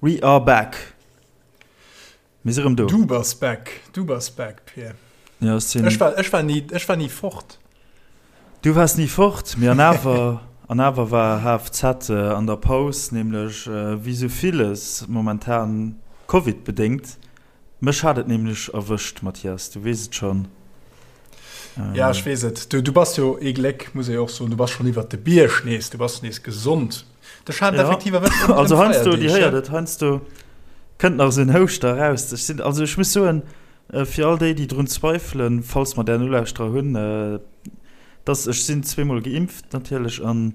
We are back! Mir si rëm do. Du bass back, du bass back, Pir. Ja, ech sinn. Ech war, ech war ni, ech war ni fort. Du waars ni fort, mee an awer, an awer war HFZ an der Paus, nämlech wéi sou villes momentan Covid-bedéngt. Mech hat et nämlech erwëscht, Mathias, du weess et schonn. Ja, ech weess et. Du, du bass jo ee Gléck, muss ee jo och soen, du bass schonn iwwert de Bierg nees, du bass nees gesond. Dech hat et effektiv erwëscht ëm Also heiansdo, Dir héiert et, heiansdo kënnt nach esou en Houschter eraus. Ech sinn, also ech muss soen, fir all déi, déi drun zweifelen, falls mer där Nolauschterer hunn, dass ech sinn zweemol geimpft natierlech an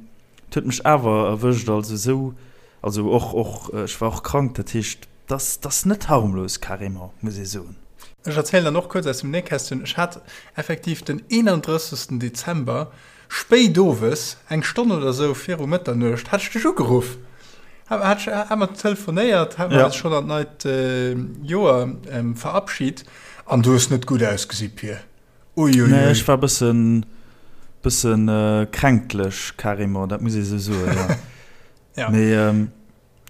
et huet mech awer erwëscht. Also esou, also och, och ech war och krank, dat heescht, dass dass net harmlos carrément, muss ee soen. Ech erzielen dann och kuerz aus dem Nähkästchen, Ech hat effektiv den 31. Dezember Spéit owes, eng Stonn oder esou viru Mëtternuecht, hat ech dech ugeruff. Hat ech, hat mer telefonéiert, hat mer eis schonn an d'neit Joer verabschit. An du hues net gutt ausgesi, Pir. Uiuiui. Nee, ech war bëssen, bëssen kränklech carrément, dat muss ee sou soen, jo. Ja. Mee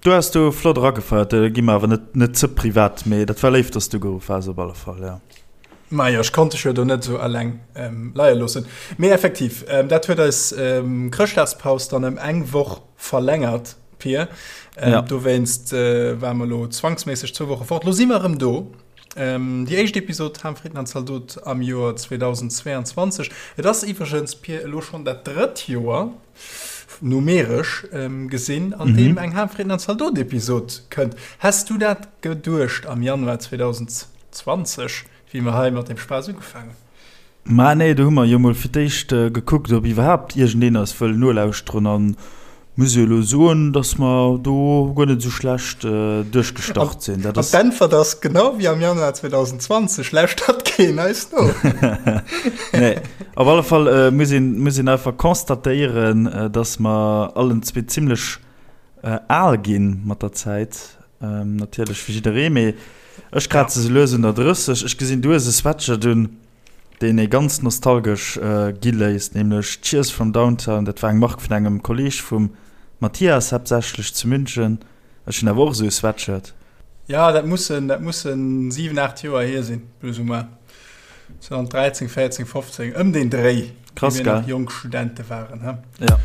Du has do flott eragefeiert, do gi mer awer net net ze privat, mee dat war léif, dass du geruff has op alle Fall, ja. Majo, ech konnt dech jo do net esou eleng leie loossen. Mee effektiv, dat huet eis Chrëschtdagspaus dann ëm eng Woch verlängert, Pir. Ja. Dowéinst ware mer elo zwangsméisseg zwou Woche fort. Lo si mer erëm do. Déi éischt Episod Ham, Fritten an Zaldot am Joer 2022. Et ass iwwregens, Pir, elo schonn dat drëtt Joer, numeresch gesinn, an deem eng Ham, Fritten an Zaldot-Episod kënnt. Häss du dat geduecht am Januar 2020, wéi mer hei mat deem Spaass ugefaangen hunn? Mä nee, do hu mer jo mol fir d'éischt gekuckt, ob iwwerhaapt iergendeen eis wëll nolauschteren. A muss jo elo soen, datt mer do guer net esou schlecht duerchgestart sinn. Dat ass. An d'Äntwert ass, genau wéi am Januar 2020, lauschtert keen eis no. Nee, op alle Fall muss een, muss een einfach constatéieren, datt mer allen zwee zimlech al gi mat der Zäit. Natierlech fir jidderee, mee ech kraze sou lues un der 30. Ech gesinn, du hues e Sweatshirt un. deen ee ganz nostalgesch gi léisst, nämlech Cheers from Downtown. Dat war eng Mark vun engem Kolleeg vum Mathias, haaptsächlech zu München. Ech hunn awer och esou e Sweatshirt. Jo, dat mussen, dat mussen 7, 8 Joer hier sinn, plus ou moins. 2013, 14, 15, ëm deen Dréi, Krass, wéi mir gell? nach jonk Studente waren, he? Ja.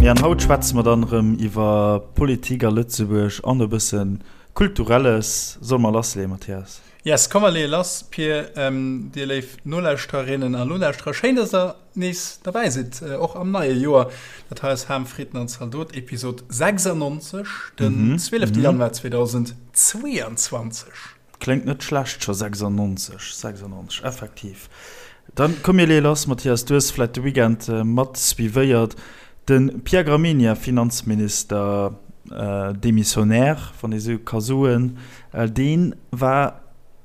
Mee an haut schwätze mer dann erëm iwwer Politik a Lëtzebuerg an e bësse Kulturelles. Solle mer lassleeën, Mathias? Yes, komm mer leeë lass, Pir. Dir léif Nolauschtererinnen a Nolauschterer, schéin, dass der nees derbäi sidd, och am neie Joer. Dat hei ass Ham, Fritten an Zaldot, Episod 96, den 12. Januar 2022. Kléngt net schlecht scho 96, 96, effektiv. Dann komm mir leeë lass, Mathias, du hues vläit de Weekend mat suivéiert, de Pierre Gramegna, Finanzminister démissionnaire, wann ee sou ka soen, dee war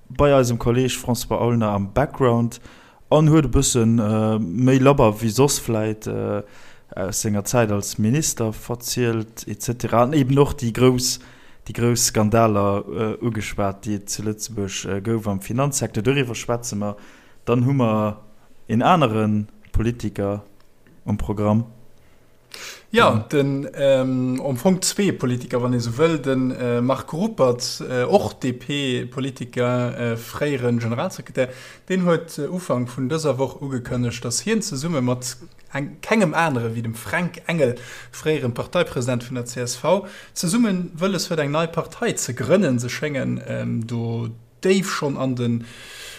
bei eisem Kolleeg François Aulner am Background An huet e bësse méi labber wéi soss vläit aus senger Zäit als Minister verzielt et cetera an eben och déi grouss, déi grouss Skandaler ugeschwat, déi et zu Lëtzebuerg gouf am Finanzsecteur. Doriwwer schwätze mer. Dann hu mer een anere Politiker um Programm. Jo, den, am Fong zwee Politiker, wann ee sou wëll, de Marc Ruppert, och DP-Politiker, fréiere Generalsekretär, deen huet Ufank vun dëser Woch ugekënnegt, datt hien zesumme mat kengem anere wéi dem Fränk Engel, fréiere Parteipresident vun der csv, zesumme wëlles huet eng nei Partei ze grënnen. Se schéngen do déif schonn an den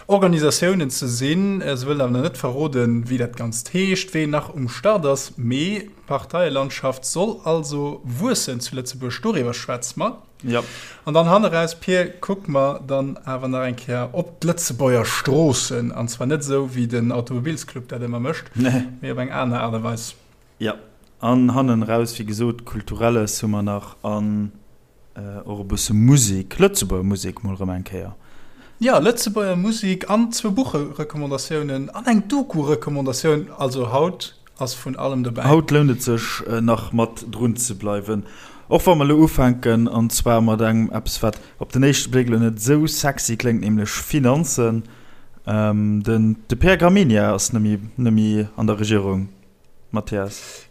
Organisatiounen ze sinn. Se wëllen awer nach net verroden, wéi dat Ganzt heescht, ween nach um Start ass. Mee d'Parteielandschaft soll also wuessen zu Lëtzebuerg, doriwwer schwätze mer. Jo. An dann hanneraus, Pir, kucke mer dann awer nach eng Kéier op d'Lëtzebuerger Stroossen. An zwar net esou, wéi den Automobilsclub dat ëmmer mécht, mee op eng aner Aart a Weis. Jo. An hannenraus, wéi gesot, Kulturelles hu mer nach an Och e bësse Musek, Lëtzebuerger Musek mol erëm eng Kéier. Jo, Lëtzebuerger Musek an zwou Buchrecommendatioune an eng Doku-Recommendatioun. Also haut ass vun allem dobäi. Haut lount et sech nach mat drun ze bleiwen. Och wa mer elo ufänken, an zwar mat engem eppes, wat op den éischte Bléck elo net esou sexy kléngt, nämlech Finanzen. Den de Pierre Gramegna ass net méi an der Regierung, Mathias.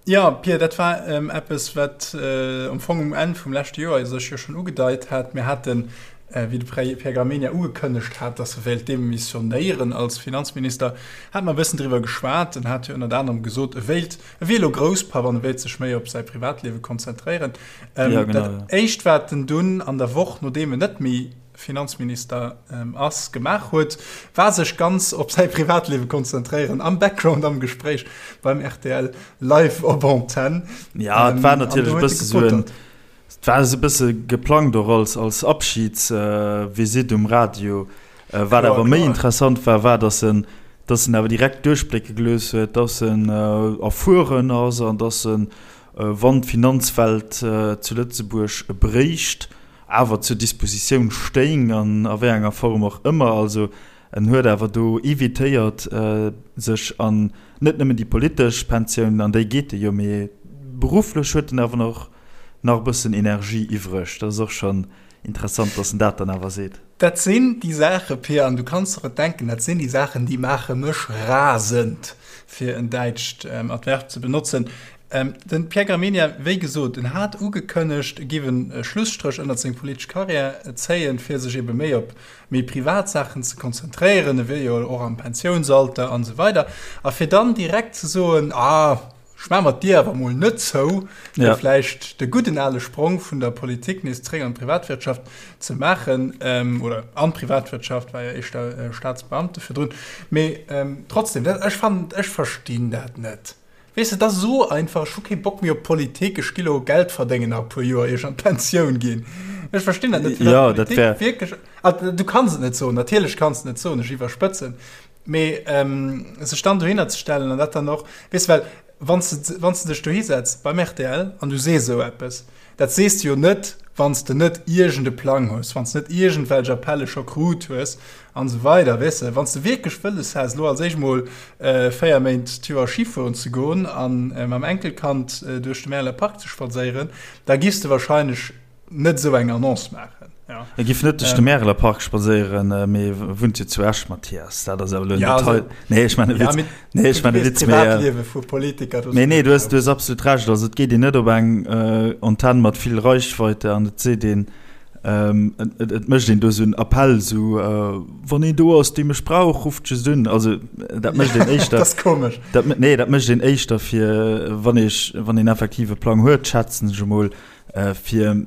Jo, Pia, dat war eppes, wat am Fong um Enn vum leschte Joer sech jo schonn ugedeit hat. Mir haten, wéi de Pierre Gramegna ugekënnegt hat, datt e wéilt demissionéieren als Finanzminister, hate mer e bëssen driwwer geschwat. En hat jo ënnert anerem gesot, e wéilt, e wier elo Grousspapp an e wéilt sech méi op säi Privatliewe konzentréieren. Dat Éischt, wat en dunn an der Woch, nodeem en net méi Finanzminister ass, gemaach huet, war sech ganz op säi Privatliewe konzentréieren, am Background am Gespréich beim rtl live op Antenn. Ja, et war natierlech e bësse sou en, et war esou e bësse geplangt och als, als Abschidsvisitt um Radio. Wat awer méi interessant war, war, datt en, datt en awer direkt duerchblécke gelooss huet, datt en erfueren ass an datt en, wann d'Finanzwelt zu Lëtzebuerg bréicht, awer zur Dispositioun stéing an a wéi enger Form och ëmmer. Also en huet awer do evitéiert, sech an net nëmmen déi politesch Pensioun, an déi geet e jo, mee berufflech huet en awer och nach e bëssen Energie iwwreg. Dat ass och schonn interessant, datt en dat dann awer seet. Dat sinn déi Saache, Pia, an du kanns der et denken, dat sinn déi Saachen, déi maache mech rasend, fir en däitscht Adverb ze benotzen. Den Pierre Gramegna, wéi gesot, en hat ugekënnegt, e giff e Schlusstréch ënnert seng politesch Karriär zéien, fir sech ebe méi op méi privat Saachen ze konzentréieren, e wier jo och am Pensiounsalter an esou weider, a fir dann direkt ze soen, ah, ech maache mer d'Dier awer mol net zou, fir vläicht de gudden ale Sprong vun der Politik nees zréck an d'Privatwirtschaft ze maachen, oder an d'Privatwirtschaft, war jo éischter Staatsbeamte virdrun, mee trotzdem, ech fannen, ech verstinn dat net. Weess de, et ass esou einfach, ech hu kee Bock méi op Politik, ech gi lo Geld verdéngen nach e puer Joer, ier ech an d'Pensioun ginn. Ech verstinn dat net, firwat d'Politik ja, wierklech, ah, du kanns et net soen, natierlech kanns de net soen, ech iwwerspëtzen, mee sech dann dohinner ze stellen an dat dann och, weess de, well wann s de, wann s de dech dohisetz beim rtl an du sees esou eppes, Dat sees de jo net, wann s de net iergend e Plang hues, wann s de net iergendwelch Appelle scho krut hues an esou weider. Weess de, wann s de wierklech wëlles häss, elo als éischt mol 4 Méint d'Joer Schi fueren ze goen a mam Enkelkand duerch de Märeler Park ze spadséieren, da giffs de wahrscheinlech net esou eng Annonce maachen. E giff net duerch de Märeler Park spadséieren, mee wunnt jo zu Esch, Mathias. Dat ass awer elo en Detail. Nee, ech maachen e Witz. Nee, ech maachen e Witz, mee, mee nee, du hues, du hues absolut Recht. Also et geet een net op eng Antenn mat vill Reichweite an et seet een, et, et mécht een do esou en Appell, esou, Wann een do ass, dee mech brauch, rufft just un. Also dat mécht een éischter. Dat ass komesch. Dat, nee, dat mécht een éischter fir, wann ee, wann een effektiv e Plang huet, schätzen ech emol, fir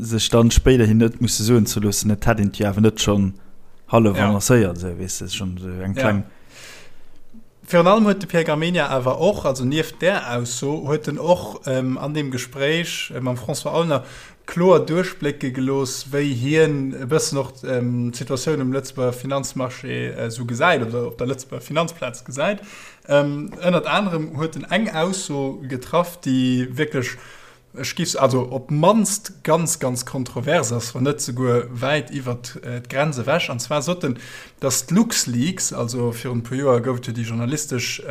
sech dann spéiderhin net musse soen ze loossen, et hätt een et jo awer net schonn hallef annoncéiert, esou, weess de, schonn esou eng kleng. Virun allem huet de Pierre Gramegna awer och, also nieft där Ausso, huet en och an deem Gespréich mam François Aulner kloer duerchblécke gelooss, wéi hien e bëssen och d'Situatioun um Lëtzebuerger Finanzmarché esou gesäit oder op der Lëtzebuerger Finanzplaz gesäit. Ënnert anerem huet en eng Ausso getraff, déi wierklech, Ech giff se, also op d'mannst ganz, ganz kontrovers ass, wann net souguer wäit iwwert d'Grenz ewech. An zwar sot en, datt d'LuxLeaks, also virun e puer Joer gouf et jo déi journalistesch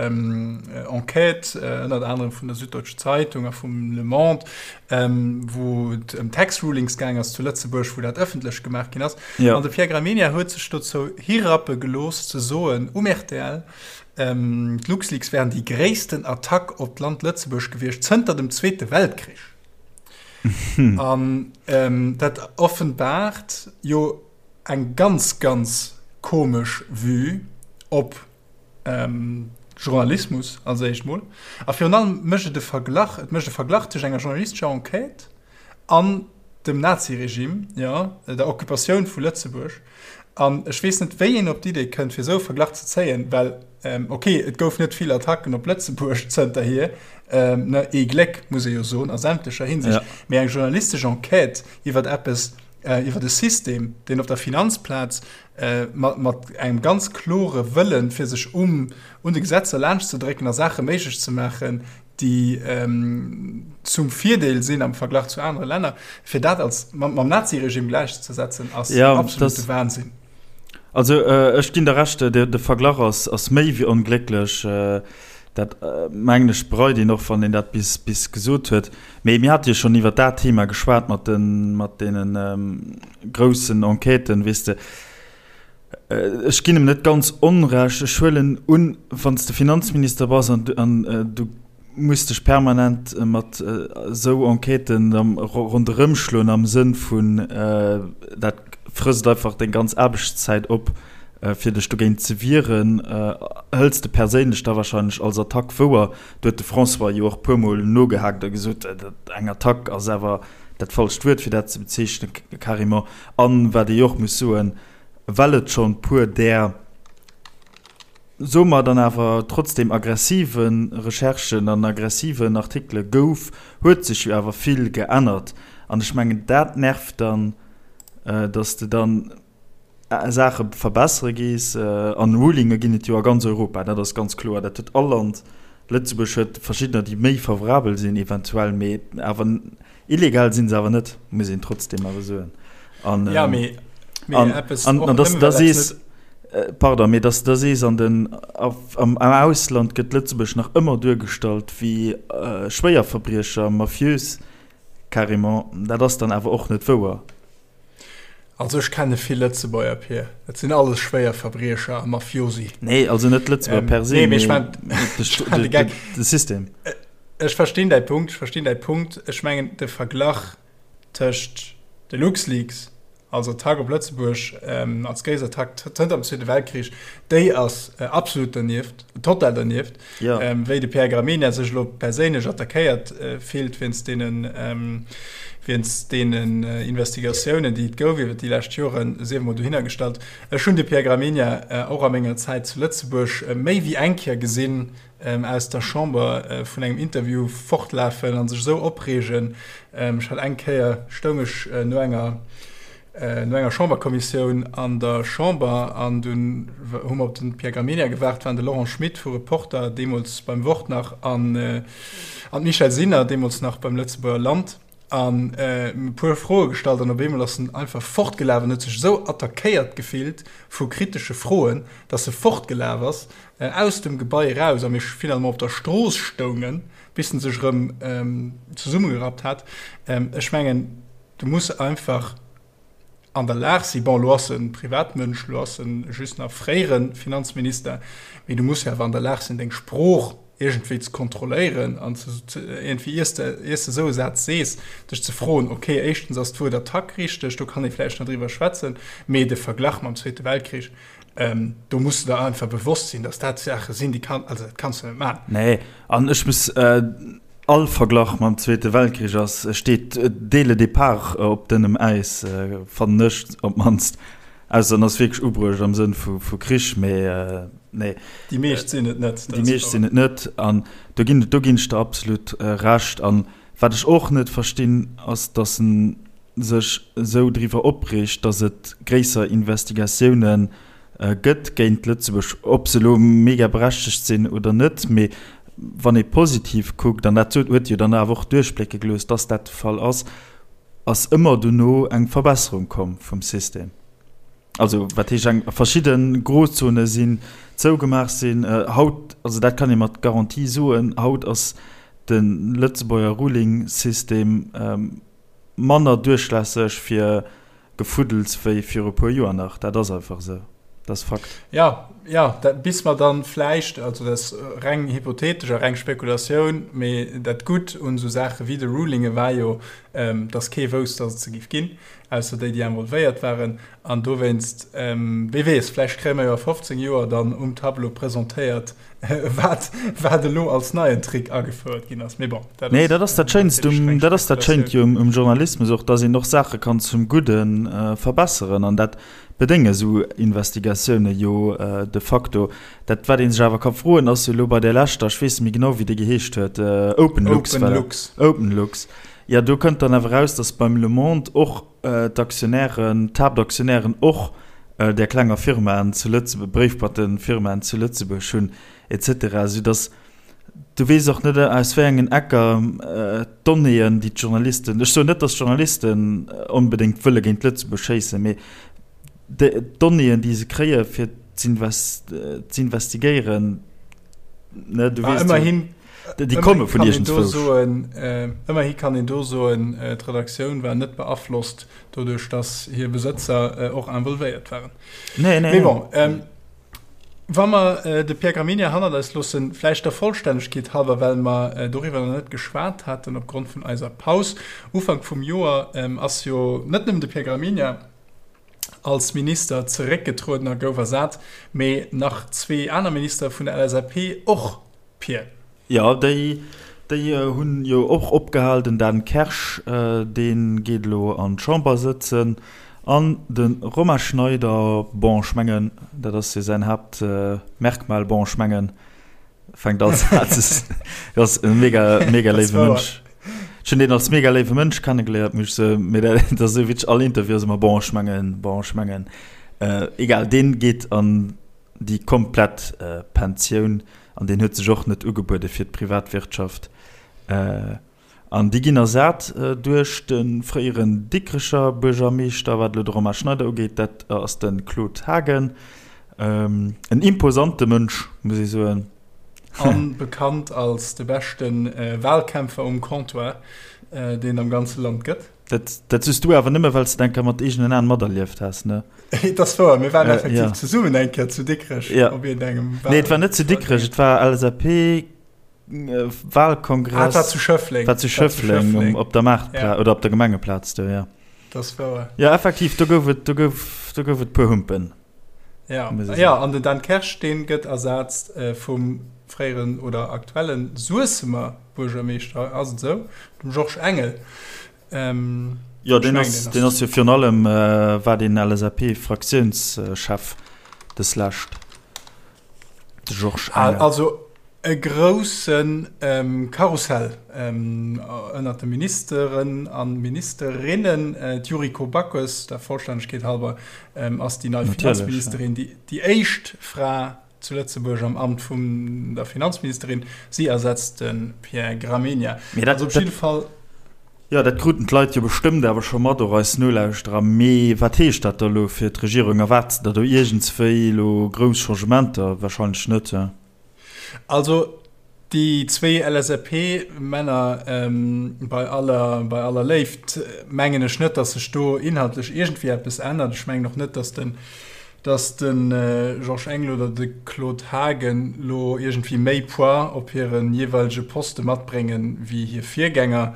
Enquête, ënnert anerem vun der Süddeutschen Zeitung a vum Le Monde, wou et ëm Tax Rulings gaang ass zu Lëtzebuerg, wou dat ëffentlech gemaach ginn ass. An de Pierre Gramegna huet sech dozou hirappe gelooss ze soen um rtl, D'LuxLeaks wären déi gréissten Attack op d'Land Lëtzebuerg gewiescht zënter dem Zweete Weltkrich. An dat offenbaart jo eng ganz, ganz komesch Vue op Journalismus als éischt mol. A virun allem mécht et e Verglach, et mécht e Verglach tëscht enger journalistescher Enquête an dem Naziregime, jo, der Occupatioun vu Lëtzebuerg. An ech weess net, wéi een op d'Idee kënnt, fir esou e Verglach ze zéien, well, ok, et gouf net vill Attacken op Lëtzebuerg zënterhier, ne, ee Gléck, muss ee jo soen, a sämtlecher Hinsicht, mee eng journalistesch Enquête iwwer eppes, iwwer e System, deen op der Finanzplaz mat engem ganz klore Wëllen, fir sech um un de Gesetzer laanschtzedrécken a Saache méiglech ze maachen, déi zum Virdeel sinn am Verglach zu anere Länner, fir dat als mam Naziregime gläichzesetzen, ass ja, absolute Wahnsinn. Also äh, ech ginn der Recht, de, de Verglach ass, ass méi wéi onglécklech. Äh, Dat mengen ech bereit een och, wann een dat bis bis gesot huet. Mee mir hate jo schonn iwwer dat Thema geschwat mat de mat deene groussen Enquêten, weess de. Ech ginn em net ganz Onrecht. Ech huelen un, wann s de Finanzminister bass an du an du muss dech permanent mat esou Enquêten ronderëmschloen am Sënn vun, dat frësst einfach deng ganz Aarbechtszäit op, fir dech dogéint ze wieren, hëls de perséinlech da wahrscheinlech als Attack wouer. Do huet de François jo och puermol nogehaakt a gesot, eng Attack ass awer dat falscht Wuert fir dat ze bezeechnen, carrément. An wat ee jo och muss soen, well et schonn puer där, soe mer dann awer trotzdem aggressive Recherchen an aggressiven Artikele gouf, huet sech jo awer vill geännert. An ech mengen dat nervt dann, datt de dann, Saache verbessere gees. An Rulinge ginn et jo a ganz Europa, dat ass ganz kloer. Dat huet all Land. Lëtzebuerg huet verschiddener, déi méi favorabel sinn eventuell, mee awer illegal si se awer net, muss een trotzdem awer soen. An, ja, mee, mee an, eppes an, och an dass nëmme, da well dat sees, net. pardon, mee dass da sees, an den, am, am Ausland gëtt Lëtzebuerg nach ëmmer duergestallt wéi Schwéierverbriecher, mafiös carrément, dat ass dann awer och net wouer. Also ech kenne vill Lëtzebuerger, Pir. Dat sinn alles Schwéierverbriecher a Mafiosi. Nee, also net d'Lëtzebuerger per se, nee, mee ech mee mein, de Gag. de System. Ech verstinn däi Punkt, ech verstinn däi Punkt. Ech mengen de Verglach tëscht de LuxLeaks als Attack op Lëtzebuerg, als gréisst Attack zënter dem Zweete Weltkrich, déi ass absolut dernieft, total dernieft. Ja. Wéi de Pierre Gramegna sech elo perséinlech attackéiert fillt wéinst deenen, wéinst deenen Investigatiounen, déi et gouf iwwer déi lescht Joren, sief emol dohinner gestallt. Ech hunn de Pierre Gramegna och a menger Zäit zu Lëtzebuerg méi wéi eng Kéier gesinn aus der Chamber vun engem Interview fortlafen a sech esou opreegen. Ech hat eng Kéier, stoung ech no enger, No enger Chamberkommissioun an der Chamber, an dunn hu mer op de Pierre Gramegna gewaart, waren de Laurent Schmit vu Reporter, deemools beim Wort nach, an d'Michèle Sinner, deemools nach beim Lëtzebuerger Land, an e puer Froe gestallt. An op eemol ass en einfach fortgelaf an huet sech esou attackéiert gefillt vu kritesche Froen, datt e fortgelaf ass aus dem Gebai eraus a mir finalement op der Strooss stoungen, bis en sech erëm zesummegerappt hat. Ech mengen, Du muss einfach an der Lag sinn, bon, elo ass e Privatmënsch, elo ass e just nach fréiere Finanzminister, mee du muss jo awer an der Lag sinn, deng Sprooch iergendwéi ze kontrolléieren an ze iergendwéi, iers de, iers de esou e Saz sees, dech ze froen, okay, éischtens ass d'Wuert Attack richteg, do kann ee vläicht nach driwwer schwätzen, mee de Verglach mam Zweete Weltkrich, do muss de der einfach bewosst sinn, datt dat Saache sinn, déi kann, also dat kanns du net maachen. Nee, an ech muss. All Verglach mam Zweete Weltkrich ass, steet dès le départ op dënnem Äis, fannen ech op d'mannst. Ausser en ass wierklech ubruecht am Sënn vu Krich, mee nee. Déi meescht sinn et net. Déi meescht sinn et net an do ginn, do ginn ech der absolut Recht. An wat ech och net verstinn, ass, datt en sech esou driwwer opreegt, datt et gréisser Investigatiounen gëtt géint Lëtzebuerg, ob se elo mega berechtegt sinn oder net, mee wann ee positiv kuckt, an dat huet jo dann awer och duerchblécke gelooss, dass dat de Fall ass, ass ëmmer dono eng Verbesserung komm vum System. Also wat heescht eng, verschidde Grozone sinn zougemaach sinn. Haut, also dat kann ee mat Garantie soen, haut ass de Lëtzebuerger Ruling-System manner duerchlässeg fir Gefuddels wéi viru e puer Joer nach. Dat ass einfach esou. Dat ass Fakt. Jo, jo, dat, bis mer dann vläicht, also dat ass reng hypothetesch a reng Spekulatioun, mee dat Gutt un esou Saache wéi de Rulinge war jo, dass kee wousst, dass et se géif ginn, ausser déi, déi involvéiert waren. An dowéinst, wee weess, vläicht kréie mer jo a 15 Joer dann um Tableau presentéiert, wat, wat elo als neien Trick agefouert ginn ass. Mee bon, dat Nee, dat ass dat Schéinst um, dat ass dat Schéint jo um Journalismus och, dass een och Saache kann zum Gudde verbesseren. An dat bedénge esou Investigatioune jo de facto. Dat, wat ee sech awer ka froen, ass jo elo bei där leschter, ech weess net méi genau, wéi déi geheescht huet, Openlux, war dat? Openlux. Openlux. Jo, do kënnt dann awer eraus, dass beim Le Monde och d'Aktionären, d'Haaptaktionären och där klenger Firmaen zu Lëtzebuerg, Bréifboîtefirmaen zu Lëtzebuerg hunn et cetera, soudass du weess och net aus wéi engen Ecker d'Donnéeën, déi d'Journalisten, ech soen net, datt d'Journalisten onbedéngt wëlle géint Lëtzebuerg schéissen, mee d'Donnéeën, déi se kréie fir z'investigéieren. Ne, du weess, ëmmerhin, déi komme vun iergendzwousch. Ëmmerhi kann een do soen, d'Redaktioun war net beaflosst doduerch, datt hir Besëtzer och involvéiert waren. Nee, nee. Mee bon, wa mer de Pierre Gramegna hannert eis loossen, vläicht der Vollstännegkeet halwer, well mer doriwwer nach net geschwat haten opgrond vun eiser Paus Ufank vum Joer, ass jo net nëmmen de Pierre Gramegna als Minister zeréckgetrueden a gouf ersat, mee nach zwee aner Ministere vun der LSAP och, Pir. Jo, déi, déi hunn jo och opgehal. Den Dan Kersch, dee geet elo an d'Chamber sëtzen an de Romain Schneider, bon, ech mengen, dat ass jo säin Haaptmerkmal, bon, ech mengen, fänkt all Saz ass e mega mega léiwe Mënsch. Ech hunn deen als mega léiwe Mënsch kennegeléiert, muss ech soen, mee dat ass esou witzeg, all Interview ass ëmmer bon ech mengen, bon ech mengen. Egal, deen geet an déi komplett Pensioun an deen huet sech och net ugebuede fir d'Privatwirtschaft. An déi ginn ersat duerch de fréieren Dikrecher Buergermeeschter, wat elo de Romain Schneider ugeet, dat ass de Claude Haagen. En imposante Mënsch, muss ee soen. A bekannt als de beschte Walkämpfer um Comptoir, deen et am ganze Land gëtt. Dat, dat soos du awer nëmme, well s de et eng Kéier mat eegenen Aen materlieft has, ne? Et ass wouer, mir waren effektiv zesummen eng Kéier zu Dikrech op iergendengem Wal. Nee, et war net zu Dikrech, et war LSAP. Wahlkongress. Ah, war zu Schëffleng. War zu Schëffleng, op der Maartplaz ja. oder op der Gemengeplaz do, ja. Das war. Ja, effektiv, do gouf et, do gouf, do gouf et puer Humpen. Ja, ja an den Dan Kersch, deen gëtt ersatzt äh, vum fréieren oder aktuellen Suessemer Buergermeeschter, ass et esou? Dem Georges Engel. Ähm, jo, deen ass, deen ass jo virun allem äh, war den LSAP-Fraktiounschef des Lescht. De Georges Engel. Also e grousse Karussell ënnert de Ministeren a Ministerinnen. D'Yuriko Backes, der Vollstännegkeet halber, ass déi nei Finanzministerin, déi éischt Fra zu Lëtzebuerg am Amt vun der Finanzministerin. Si ersetzt de Pierre Gramegna. Also op jidde Fall. Jo, dat kruten d'Leit jo bestëmmt awer scho mat, och eis Nolauschterer. Mee wat heescht dat da elo fir d'Regierung? Erwaart se der do iergendswéi elo grouss Changementer? Wahrscheinlech net, he? Also déi zwéi LSAP-Männer, bei aller, bei aller Léift, mengen ech net, datt sech do inhaltlech iergendwéi eppes ännert. Ech mengen och net, datt den, datt de Georges Engel oder de Claude Haagen lo iergendwéi méi Poids op hire jeeweilege Poste matbréngen, wéi hir Virgänger.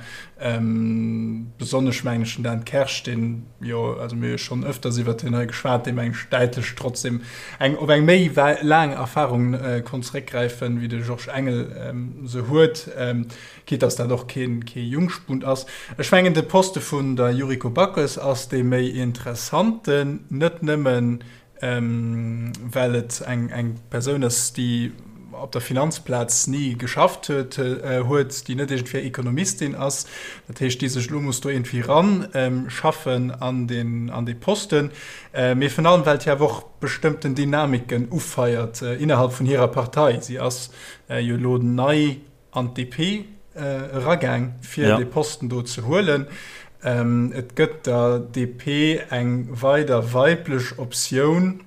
Besonnesch mengen ech den Dan Kersch, deen jo, also mir hu jo schonn ëfters iwwert hien hei geschwat, dee mengen ech däitlech trotzdem eng op eng méi laang Erfarung konnt zeréckgräifen, wéi de Georges Engel se huet. Quitte dass dat och kee Jungspund ass. Ech mengen, de Poste vun der Yuriko Backes ass dee méi interessanten, net nëmmen, well et eng Persoun ass, déi op der Finanzplaz ni geschafft huet, déi net iergendwéi Ekonomistin ass, dat heescht, déi sech elo muss do iergendwéi eranschaffen an dee Posten, mee virun allem, well d'hir awer och bestëmmten Dynamiken ufeiert innerhalb vun hirer Partei. Si ass jo elo nei an d'DP eragaang, fir dee Posten do ze huelen. Et gëtt der DP eng weider weiblech Optioun.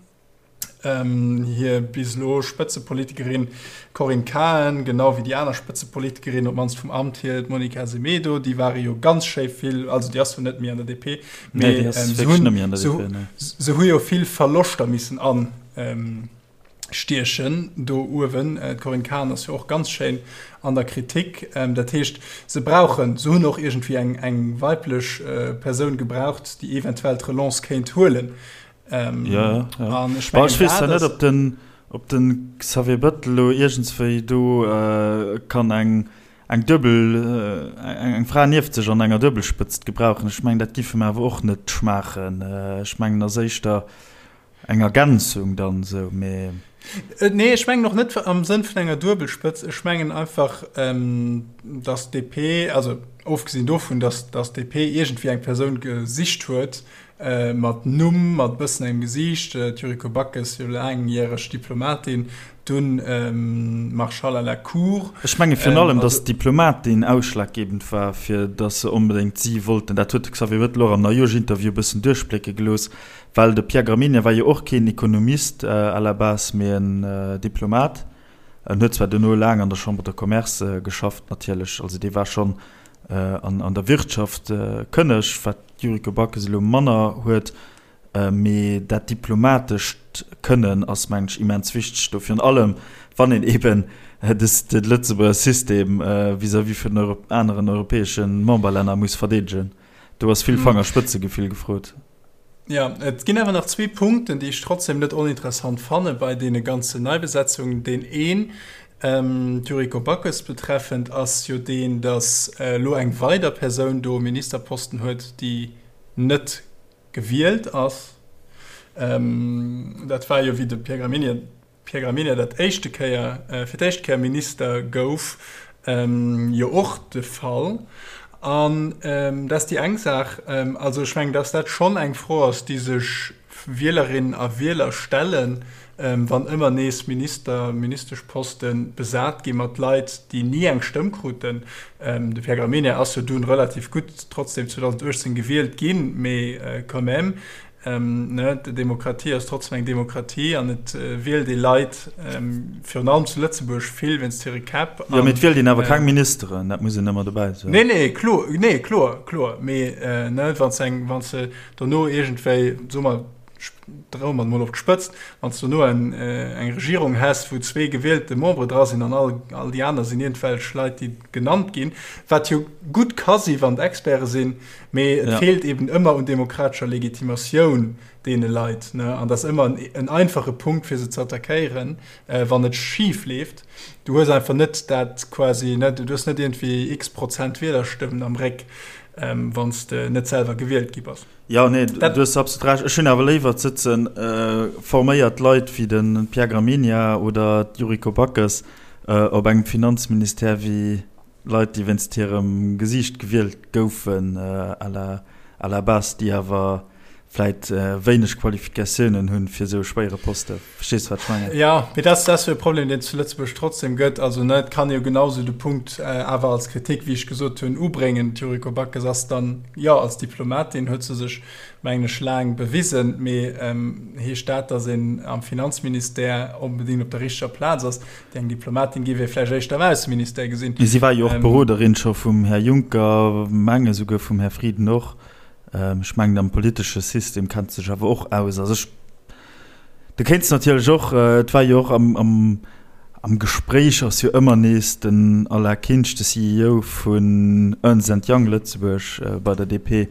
Hir bis elo Spëtzepolitikerin Corinne Cahen, genau wéi déi aner Spëtzepolitikerin, op d'mannst vum Amt hier, d'Monica Semedo, déi ware jo ganz schéi vill, also déi ass zwar net méi an der DP, mee se hu jo vill Verloschter missen an. Stiechen do uewen. D'Corinne Cahen ass jo och ganz schéin an der Kritik. Dat heescht, se brauchen, se hunn och iergendwéi eng, eng weiblech Persoun gebraucht, déi eventuell d'Relance kéint huelen. Jo, jo. An ech mengen, ech weess zwar net, ob den, ob den Xavier Bettel elo iergendswéi do kann eng, eng Duebel, eng Fra nieft sech an enger Duebelspëtzt gebrauchen. Ech mengen, dat giff em awer och net schmaachen. Ech mengen, ass éischter Eng Ergänzung dann esou, mee. Nee, ech mengen och net am Sënn vun enger Duebelspëtz. Ech mengen einfach, datt d'DP, also ofgesinn dovun, datt d'DP iergendwéi eng Persoun gesicht huet mat Numm, mat e bëssen engem Gesiicht, d'Yuriko Backes, jo laangjäreg Diplomatin, dunn Marschall à la Cour. Ech menge virun allem, datt d'Diplomatin ausschlaggebend war, fir datt se onbedéngt si wollten. Dat huet de Xavier Bettel och am Neijooschinterview e bëssen duerchblécke gelooss. Well de Pierre Gramegna war jo och keen Ekonomist à la base, mee en Diplomat. En huet zwar duerno laang an der Chambre de Commerce geschafft natierlech, also dee war schonn an der Wirtschaft kënneg, wat d'Yuriko Backes elo manner huet. Mee dat diplomatescht Kënnen ass, mengen ech, immens wichteg do, virun allem wann een eeben de Lëtzebuerger System vis-à-vis vun den aneren europäesche Memberlänner muss verdeedegen. Do ass vill Fangerspëtzegefill gefrot. Jo, et ginn awer nach zwee Punkten, déi ech trotzdem net oninteressant fanne bei deene ganzen Neibesetzungen. Deen een, d'Yuriko Backes betreffend, ass jo deen, datt elo eng weider Persoun do e Ministerposten huet, déi net gewielt ass. Dat war jo, wéi de Pierre Gramegna, Pierre Gramegna dat éischte Kéier, fir d'éischt Kéier Minister gouf, jo och de Fall. An dat ass déi eng Saach. Also ech mengen, datt dat schonn eng Fro ass, déi sech Wielerinnen a Wieler stellen, wann ëmmer nees Minister, Ministeschposte besat gi mat Leit, déi ni eng Stëmm kruten. De Pierre Gramegna ass jo dunn relativ gutt trotzdem 2018 gewielt ginn, mee quand même, ne, d'Demokratie ass trotzdem eng Demokratie an et wielt ee Leit, virun allem zu Lëtzebuerg, vill wéinst hire Käpp. Jo, mee et wielt een awer keng Ministeren, dat muss een ëmmer dobäi soen. Nee, nee, kloer, nee, kloer, kloer, mee ne, wann s eng, wann s de dono iergendwéi, soe mer, droe mer et mol op d'Spëtzt, wann s du dono eng Regierung häss, wou zwee gewielte Membere dra sinn an all, all déi aner sinn iergendwelch Leit, déi genannt ginn, wat jo gutt ka si wann et Experte sinn, mee et feelt eben ëmmer un demokratescher Legitimatioun deene Leit, ne? An dat ass ëmmer en einfache Punkt, fir se ze attackéieren, wann et schif leeft. Du hues einfach net dat quasi, ne, du hues net iergendwéi x-Prozent Wielerstëmmen am Réck, wann s de net selwer gewielt gi bass. Jo, nee, du hues absolut Recht. Ech hunn awer léiwer, et sëtze forméiert Leit wéi de Pierre Gramegna oder d'Yuriko Backes op engem Finanzministère wéi Leit, déi wéinst hirem Gesiicht gewielt goufen à la, à la base, déi awer vläit wéineg Qualifikatiounen hunn fir esou e schwéiere Poste. Verstees de, wat ech mengen? Jo, mee dat ass jo e Problem, deen et zu Lëtzebuerg trotzdem gëtt. Also, ne, et kann ee jo genau esou de Punkt awer als Kritik, wéi ech gesot hunn, ubréngen. D'Yuriko Backes ass dann, jo, als Diplomatin huet se sech, mengen ech, laang bewisen. Mee heescht dat, datt een am Finanzministère onbedéngt op der richteger Plaz ass? Déi eng Diplomatin géif ee vläicht éischter am Ausseministère gesinn. Mee si war jo och Beroderin scho vum Här Juncker, menge souguer vum Här Frieden och. Ech mengen am politesche System kennt sech awer och aus. Also ech, du kéints natierlech och, et war jo och am, am, am Gespréich ass jo ëmmer nees den Alain Kinsch, de CEO vun Ernst and Young Lëtzebuerg bei der DP,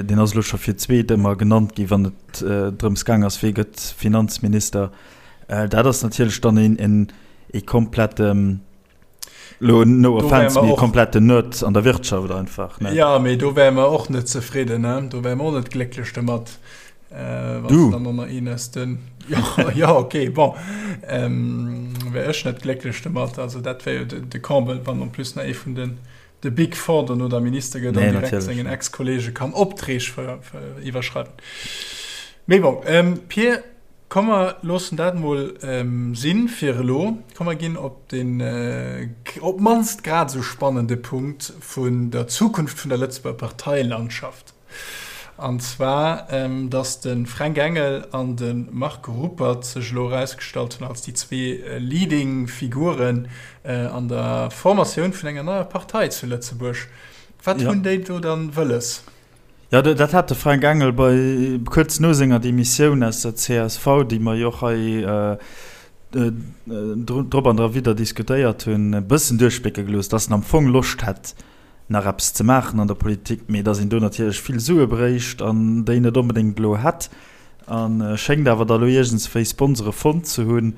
deen ass elo scho fir d'zweet ëmmer genannt gi wann et drëms gaang ass, wee gëtt Finanzminister. Dat ass natierlech dann een, een, ee komplette Lo no offense, mee kompletten Nerd an der Wirtschaft einfach. Ne? Ja, mee do wäre mer och net zefridden, ne? Do wäre mer och net glécklech domat. Äh, du? Dann noch een aus den. Ja, ja, okay, bon. Ähm, wär ech net glécklech domat. Also dat wär jo de, de Comble, wann en plus nach ee vun den de Big Four dono da Minister gëtt an direkt sengen Ex-Kollege kann Opträg iwwerschreiwen. Mee bon, ähm, Pir, Komm mer loossen dat mol sinn fir elo. Komm mer ginn op den op d'mannst grad esou spannende Punkt vun der Zukunft vun der Lëtzebuerger Parteilandschaft. An zwar, datt de Fränk Engel an de Marc Ruppert sech elo erausgestallt hunn als déi zwee leading Figuren an der Formatioun vun enger neier Partei zu Lëtzebuerg. Wat hunn déi do dann wëlles? Jo, dat hat de Fränk Engel bei, kuerz no senger Demissioun aus der csv, déi mer jo och hei drop an derwidder diskutéiert hunn, e bëssen duerchblécke gelooss, datt en am Fong Loscht hätt, nach eppes ze maachen an der Politik, mee datt een do natierlech vill Sue bréicht an déi net onbedéngt elo hätt. A schéngt awer da lo iergendswéi Sponsore fonnt ze hunn.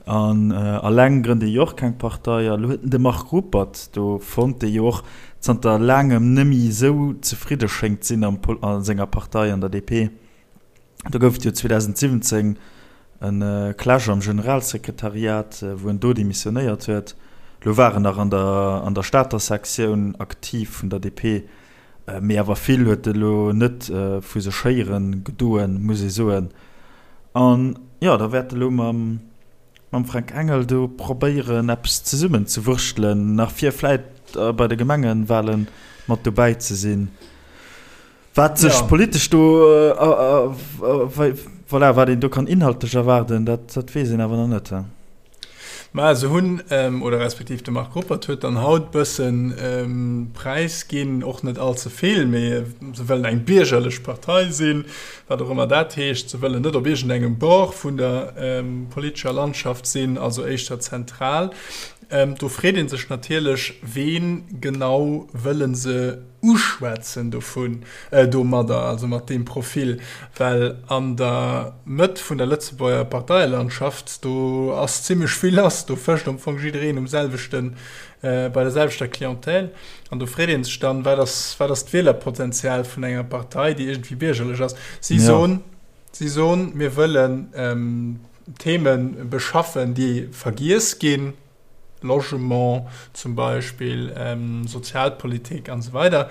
An alleng grënnt ee jo och keng Partei. A lo huet en de Marc Ruppert do fonnt, dee jo och zanter laangem nëmmi esou zefridde schéngt sinn am a senger Partei, an der DP. Do gouf et jo 2017 e Clash am Generalsekretariat, wou en do demissionéiert huet. Lo war en nach an der an der Stater Sektioun aktiv vun der DP. Mee awer vill huet e lo net vu sech héieren gedoen, muss ee soen. An jo, da wäert e lo mam mam Fränk Engel do probéieren eppes zesummen ze wurschtelen, nach fir vläit bei de Gemengewale mat dobäi ze sinn. Wat sech politesch do, voilà, wat een do kann inhaltlech erwaarden, dat dat weess een awer nach net. Mä se hunn, oder respektiv de Marc Ruppert huet dann haut bësse präisginn, och net all ze vill, mee se wëllen eng biergerlech Partei sinn, wat och ëmmer dat heescht. Se wëllen net op iergendengem Bord vun der politescher Landschaft sinn, also éischter zentral. Do freet ee sech natierlech, Ween genau wëlle se uschwätzen dovun, domadder, also mat deem Profil? Well an der Mëtt vun der Lëtzebuerger Parteielandschaft, do ass zimmlech vill lass, do fëscht am Fong jiddereen um selwechten, bei der selwechter Clientèle. An do freet ee sech dann, Wat ass, wat ass d'Wielerpotenzial vun enger Partei, déi iergendwéi biergerlech ass? Si soen, si soen, mir wëllen, Theme beschaffen, déi vergiess ginn, Logement zum Beispill, Sozialpolitik an esou weider.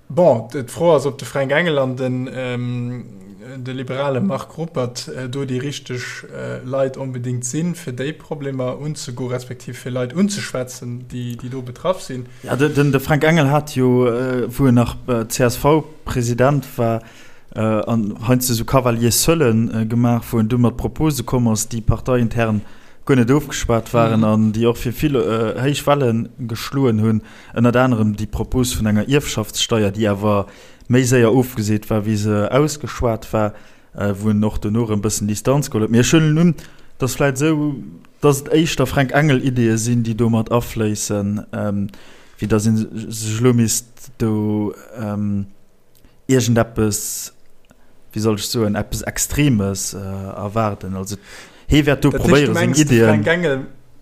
Bon, d'Fro ass, ob de Fränk Engel an den de liberale Marc Ruppert do déi richteg Leit onbedéngt sinn, fir déi Problemer unzegoen, respektiv fir Leit unzeschwätzen, déi do betraff sinn. Jo, de Fränk Engel hat jo, wou en nach CSV-President war, an heiansdo esou Cavaliers seulen gemaach, wou en du mat Propose komm ass, déi parteiintern guer net ofgeschwat waren an déi och fir vill héich Welle geschloen hunn, ënnert anerem déi Propos vun enger Ierfschaftssteier, déi awer méi séier ofgeseet war, wéi se ausgeschwat war, wou en och dono erëm e bëssen Distanz geholl huet. Mee ech huelen un, dass vläicht esou, dass et éischter Fränk Engel-Ideeë sinn, déi do mat afléissen, wéi dass ee sech elo misst do, iergendeppes, wéi soll ech soen, eppes Extremes erwaarden. Also hee wäert do probéieren, seng Iddien.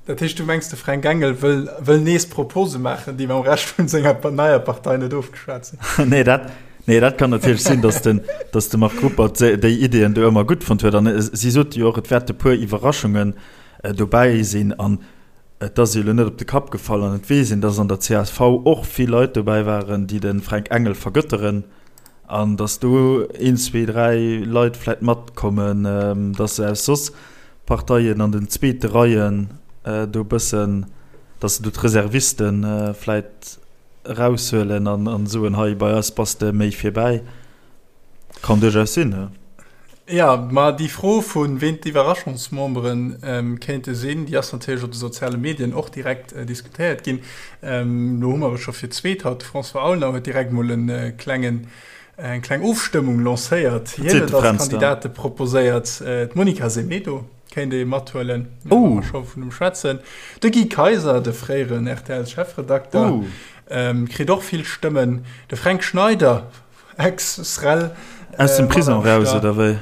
Dat heescht, du mengs, de Fränk Engel wëll, wëll nees Propose maachen, déi mam Rescht vun senger neier Partei net ofgeschwat sinn? Nee, dat, nee, dat kann natierlech sinn, datt den, datt de Marc Ruppert déi Iddien do ëmmer gutt fonnt huet. An si sot jo och, et wäerte puer Iwwerraschungen dobäi sinn. An Et ass jo elo net op de Kapp gefall an et weess een, dass an der csv och vill Leit dobäi waren, déi de Fränk Engel vergëtteren an dass do een, zwee, dräi Leit vläit matkommen, dass se aus soss Parteien an den zweete Reien do e bëssen, dass se do d'Reserviste vläit eraushuelen an soen, hei bei eis bass de méi virbäi. Kann duerchaus sinn, jo. Jo, ma déi Fro vu ween d'Iwwerraschungsmembere kéinte sinn, déi ass natierlech op de soziale Medien och direkt diskutéiert ginn. Lo hu mer et scho fir d'zweet haut, de François Aulner huet direkt mol e klengen, eng kleng Ofstëmmung lancéiert. Hien huet als Kandidate proposéiert d'Monica Semedo kéint ee mathuelen, wa mer scho vun em schwätzen. De Guy Kaiser, de fréieren RTL-Chefredakter, kritt och vill Stëmmen. De Fränk Schneider, Ex-Srel. Aus dem Prison raus, oder wéi?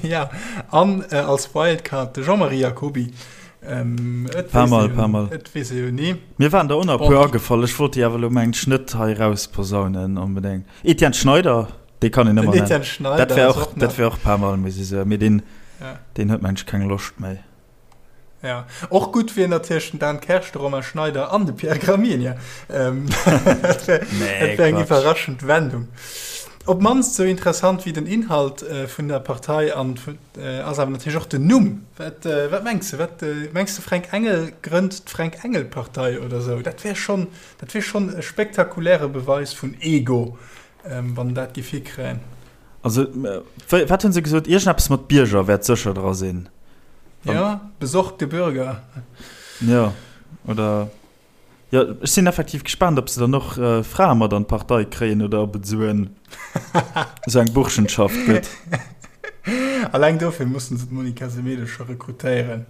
Ja, an als Wildcard de Jean-Marie Jacoby. Et Paar Mol, paar Mol. Et weess ee jo ni. Mir waren der och nach e puer agefall. Ech wollt déi awer elo mengen ech net hei rausposaunen onbedéngt. Etienne Schneider, dee kann een ëmmer nennen. Den Etienne Schneider dat wär och, dat wär och paar Mol, muss ech soen. Mee deen, deen huet mengen ech keng Loscht méi. Ja, och gutt wier natierlech den Dan Kersch, de Romain Schneider an de Pierre Gramegna. Ähm, dat wär, nee, dat wär eng iwwerraschend Wendung. Op mannst sou interessant wéi den Inhalt äh, vun der Partei an äh, ass awer natierlech och den Numm. Wat, äh, wat mengs du? Wat, äh, mengs du Fränk Engel grënnt d'Fränk Engel Partei oder sou? Dat wär schon, dat wär schon e spektakuläre Beweis vun Ego, ähm, wann dat géif hikréien. Also, wat hunn se gesot? Iergendeppes mat Bierger wäert sécher dra sinn. Ja, besorgte Bürger. Ja, oder jo, ech sinn effektiv gespaant, ob se dann och Frae mat an d'Partei kréien oder ob et esou en, esou eng Burschenschaft gëtt. Alleng dofir mussen se d'Monica Semedo scho rekrutéieren.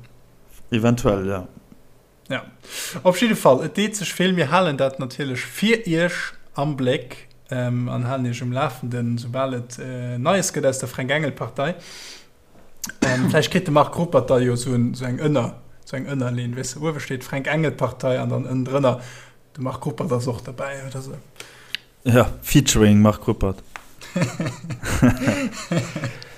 Eventuell, ja. Ja, op jidde Fall, et deet sech vill. Mir halen dat natierlech fir Iech am Bléck an halen Iech um Lafenden, soubal et Neies gëtt aus der Fränk-Engel-Partei. Vläicht kritt de Marc Ruppert da jo esou eng Ënner, esou eng Ënnerleen, weess de, uewe steet Fränk-Engel-Partei an dann ënnendrënner de Marc Ruppert ass och derbäi oder esou. Ja, featuring Marc Ruppert.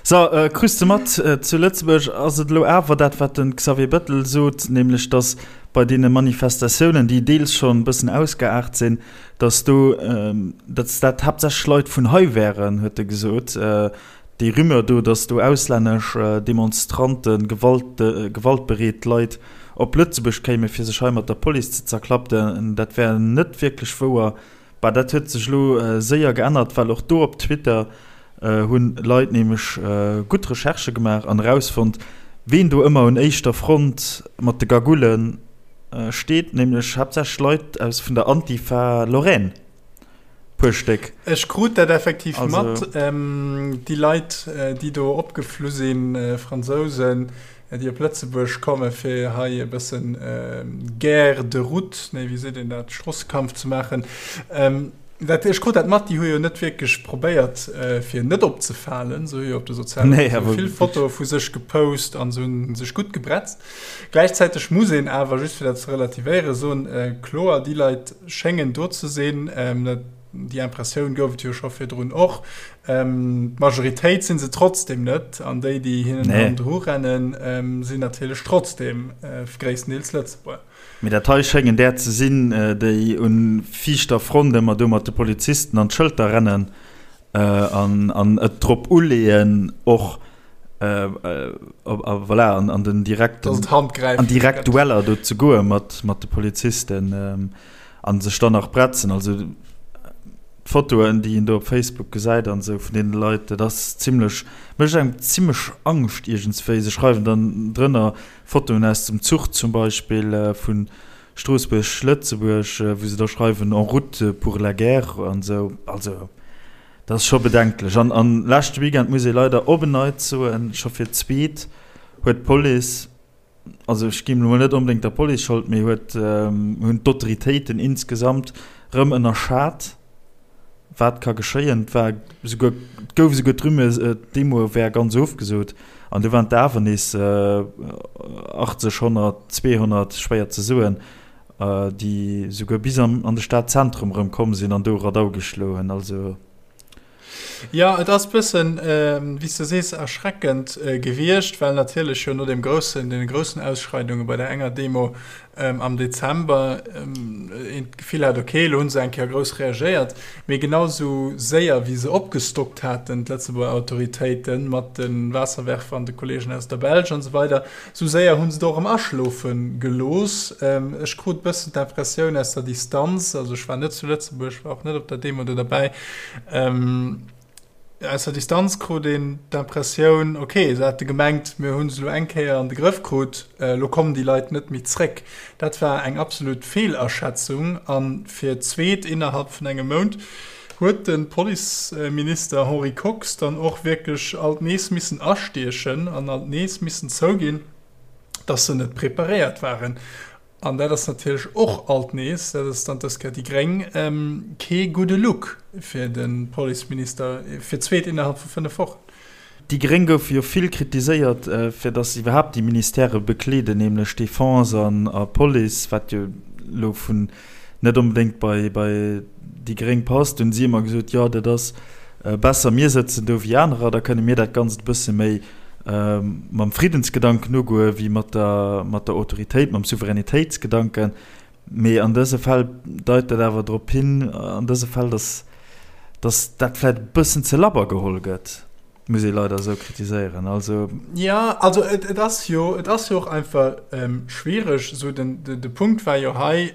So, äh, krus de mat, äh, zu Lëtzebuerg ass et elo awer dat, wat den Xavier Bettel sot, nämlech datt bei deene Manifestatiounen, déi deels schonn e bëssen ausgeaart sinn, datt do, ähm, datt dat haaptsächlech Leit vun hei wären, huet e gesot. Äh, déi Rumeur do, datt do auslännesch Demonstranten, Gewalt, gewaltbereet Leit op Lëtzebuerg kéime fir sech hei mat der Police ze zerklappten, dat wär net wierklech wouer. Bah, dat huet sech elo séier geännert, well och do op Twitter hu Leit nämlech gutt Recherchë gemaach an erausfonnt, Ween do ëmmer un éischter Front mat de Gagoule steet, nämlech haaptsächlech Leit aus vun der Antifa Lorraine, puer Stéck. Ech krut dat effektiv mat, déi Leit, déi do opgeflu sinn, Fransousen, déi op Lëtzebuerg komme fir hei e bëssen Guerre de route, nee wéi seet een dat, Stroossekampf ze maachen. Dat, ech krut dat mat, déi hu jo net wierklech probéiert fir net opzefalen. Se hu jo op de soziale nee, Reseaue vill Fotoe vu sech gepost an se hunn sech gutt gebretzt. Gläichzäiteg muss een awer, just fir dat ze relativéieren, soen, kloer, déi Leit schéngen do ze sinn. Dat, déi Impressioun gouf et jo scho virdrun och. D'Majoritéit si se trotzdem net an déi, déi hinnen hannendru rennen, sinn natierlech trotzdem gréisstendeels Lëtzebuerger. Mee dat hei schéngen där ze sinn, déi un viischter Front ëmmer do mat de Polizisten an d'Schëlter rennen an et drop uleeën och voilà an den direkten an direkt Dueller do ze goe mat mat de Polizisten an sech dann nach bretzen. Also d'Fotoen, déi een do op Facebook gesäit an esou vun deene Leit, dat ass zimlech, mécht engem zimlech Angscht iergendswéi. Se schreiwen dann drënner, Fotoen aus dem Zuch zum Beispill vu Stroossbuerg, Lëtzebuerg, wou se da schreiwen en route pour la guerre an esou. Also dat ass scho bedenklech. An an leschte Weekend muss ee leider op en Neits soen, scho fir d'zweet huet d'Police, also ech ginn elo mol net onbedéngt der Police Schold, mee huet hunn d'Autoritéiten insgesamt rëm ënnerschat, Wat ka geschéien? Et war esouguer, et gouf esouguer d'Rumeur, d'Demo wär ganz ofgesot. An du waren et awer nees 80, 100, 200, schwéier ze soen, déi esouguer bis an de Stadzentrum erëm komm sinn an do Radau geschloen hunn. Also. Jo, et ass bëssen, wéi s de sees, erschreckend gewiescht, well natierlech jo no deem groussen, deene groussen Ausschreidunge bei der enger Demo am Dezember een d'Gefill hat, ok, elo hu se eng Kéier grouss reagéiert, mee genau esou séier wéi se opgestockt haten, d'Lëtzebuerger Autoritéiten, mat de Waasserwerfer an de Kolleegen aus der Belsch an esou weider, esou séier hu se et och erëm aschlofe gelooss. Ech krut e bëssen d'Impressioun aus der Distanz, also ech war net zu Lëtzebuerg, war och net op der Demo do derbäi, Aus der Distanz krut een d'Impressioun, ok, se hate gemengt, mir hu se elo eng Kéier an de Grëff krut, elo kommen déi Leit net méi zréck. Dat war eng absolut Feelaschätzung. A fir d'zweet innerhalb vun engem Mount huet de Policeminister Henri Kox dann och wierklech alt nees missen astiechen an alt nees missen zouginn, datt se net preparéiert waren. An dat ass natierlech och alt nees, dat ass dann dës Kéier déi gréng, kee gudde Look fir de Policeminister, fir d'zweet innerhalb vu 5 Wochen. Déi gréng goufe jo vill kritiséiert, fir datt se iwwerhaapt déi Ministèrë bekleeden, nämlech Defense an a Police, wat jo elo vun net onbedéngt bei déi gréng passt. Hunn si ëmmer gesot, jo dat ass besser mir sëtzen do wéi anerer, da kënne mir dat Ganzt e bësse méi mam Friddensgedanken ugoe wéi mat der, mat der Autoritéit, mam Souveränitéitsgedanken. Mee an dëse Fäll deit dat awer drop hin, an dëse Fäll, datt, datt dat vläicht e bëssen ze labber geholl gëtt, muss ee leider esou kritiséieren. Also. Jo, also et, et ass jo, et ass jo och einfach schwiereg. Esou den, de Punkt war jo hei,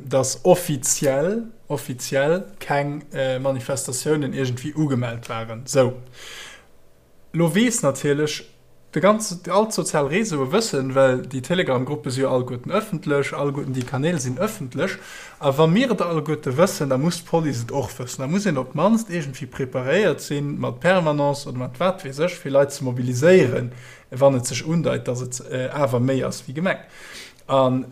datt offiziell, offiziell keng Manifestatiounen iergendwéi ugemellt waren. Sou. Lo weess natierlech de ganze, all d'sozial Réseaue wëssen, well déi Telegram-Gruppe si jo alleguerten ëffentlech, alleguerten déi Kanäl sinn ëffentlech, a wa mir et alleguerte wëssen, da muss d'Police et och wëssen. Da muss een op d'mannst iergendwéi preparéiert sinn, mat Permanence oder mat wat weess ech, fir Leit ze mobiliséieren, wann et sech undeit, datt et awer méi ass wéi gemengt. An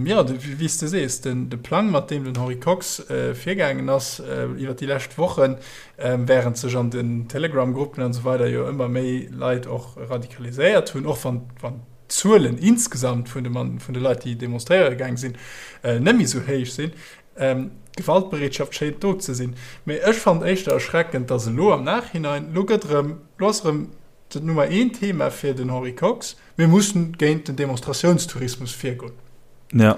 jo, wéi s de sees, de Plang, mat deem den Henri Kox virgaangen ass iwwer déi lescht Wochen, wärend sech an den Telegram-Gruppen an esou weider jo ëmmer méi Leit och radikaliséiert hunn, och wann d'Zuelen insgesamt vun de Leit, déi demonstréiere gaang sinn, net méi esou héich sinn, d'Gewaltbereetschaft schéint do ze sinn. Mee ech fannen éischter erschreckend, datt elo am Nachhinein, elo gëtt erëm, elo ass erëm dat Nummer een Thema fir den Henri Kox, Mir mussen géint den Demonstratiounstourismus virgoen. Ja.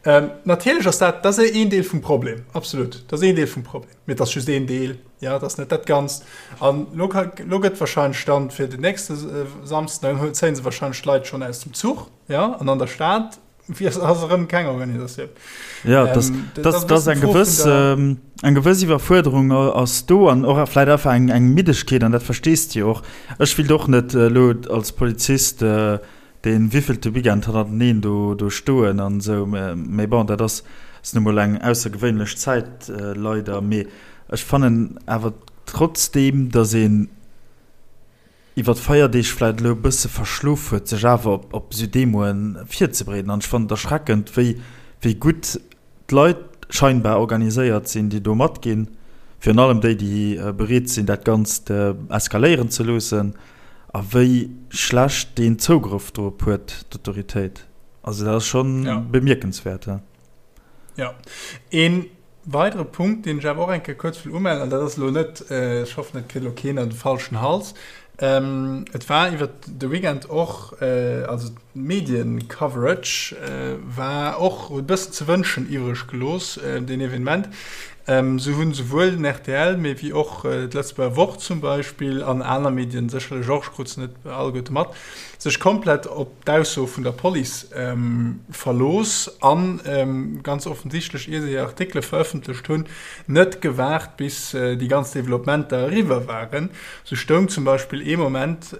Ähm, natierlech ass dat, dat ass een Deel vum Problem, absolut. Dat ass een Deel vum Problem. Mee et ass just een Deel, ja, dat ass net dat Ganzt. An lo, lo gëtt wahrscheinlech dann fir den nächste äh, Samsden, dann zéien se wahrscheinlech d'Leit schonn aus dem Zuch, ja, an an der Stad ass erëm keng Organisatioun. Ja, das, ähm, das, das, das eng gewëss, ähm, eng gewëss Iwwerfuerderung ass do an och vläit einfach eng, eng Middegkeet an dat verstees de jo och. Ech willt och net äh, lo als Polizist äh, dee wéivillte Weekend hannerteneen do do stoen an esou. Mee bon, dat ass ass nu mol eng aussergewéinlech Zäit leider. Mee ech fannen awer trotzdeem, datt een iwwer d'Feierdeeg vläit elo e bësse verschlof huet, sech awer op op esou Demoen virzebereeden. An ech fannen et erschreckend, wéi wéi gutt d'Leit scheinbar organiséiert sinn, déi do matginn, virun allem déi, déi bereet sinn, dat Ganzt eskaléieren ze loossen, a wéi schlecht deen Zougrëff dorop huet, d'Autoritéit. Also dat ass scho bemierkenswäert. Jo. Ee weidere Punkt, deen ech awer och eng Kéier kuerz wëll umellen, an dat ass elo net, ech hoffen, et kritt elo keen an de falschen Hals, Et war iwwert de Weekend och, also d'Medien-Coverage war och, huet e bëssen ze wënschen iwwreg gelooss, deen Evenement. Sou hunn souwuel den rtl, mee wéi och d'Lëtzebuerger Wort zum Beispill an aner Medien sécherlech och, ech krut se net alleguerte mat, sech komplett op d'Ausso vun der Police verlooss an ganz offensichtlech, ier se hir Artikele verëffentlecht hunn, net gewaart bis déi ganz Developpementer eriwwer waren. Sou stoung zum Beispill ee Moment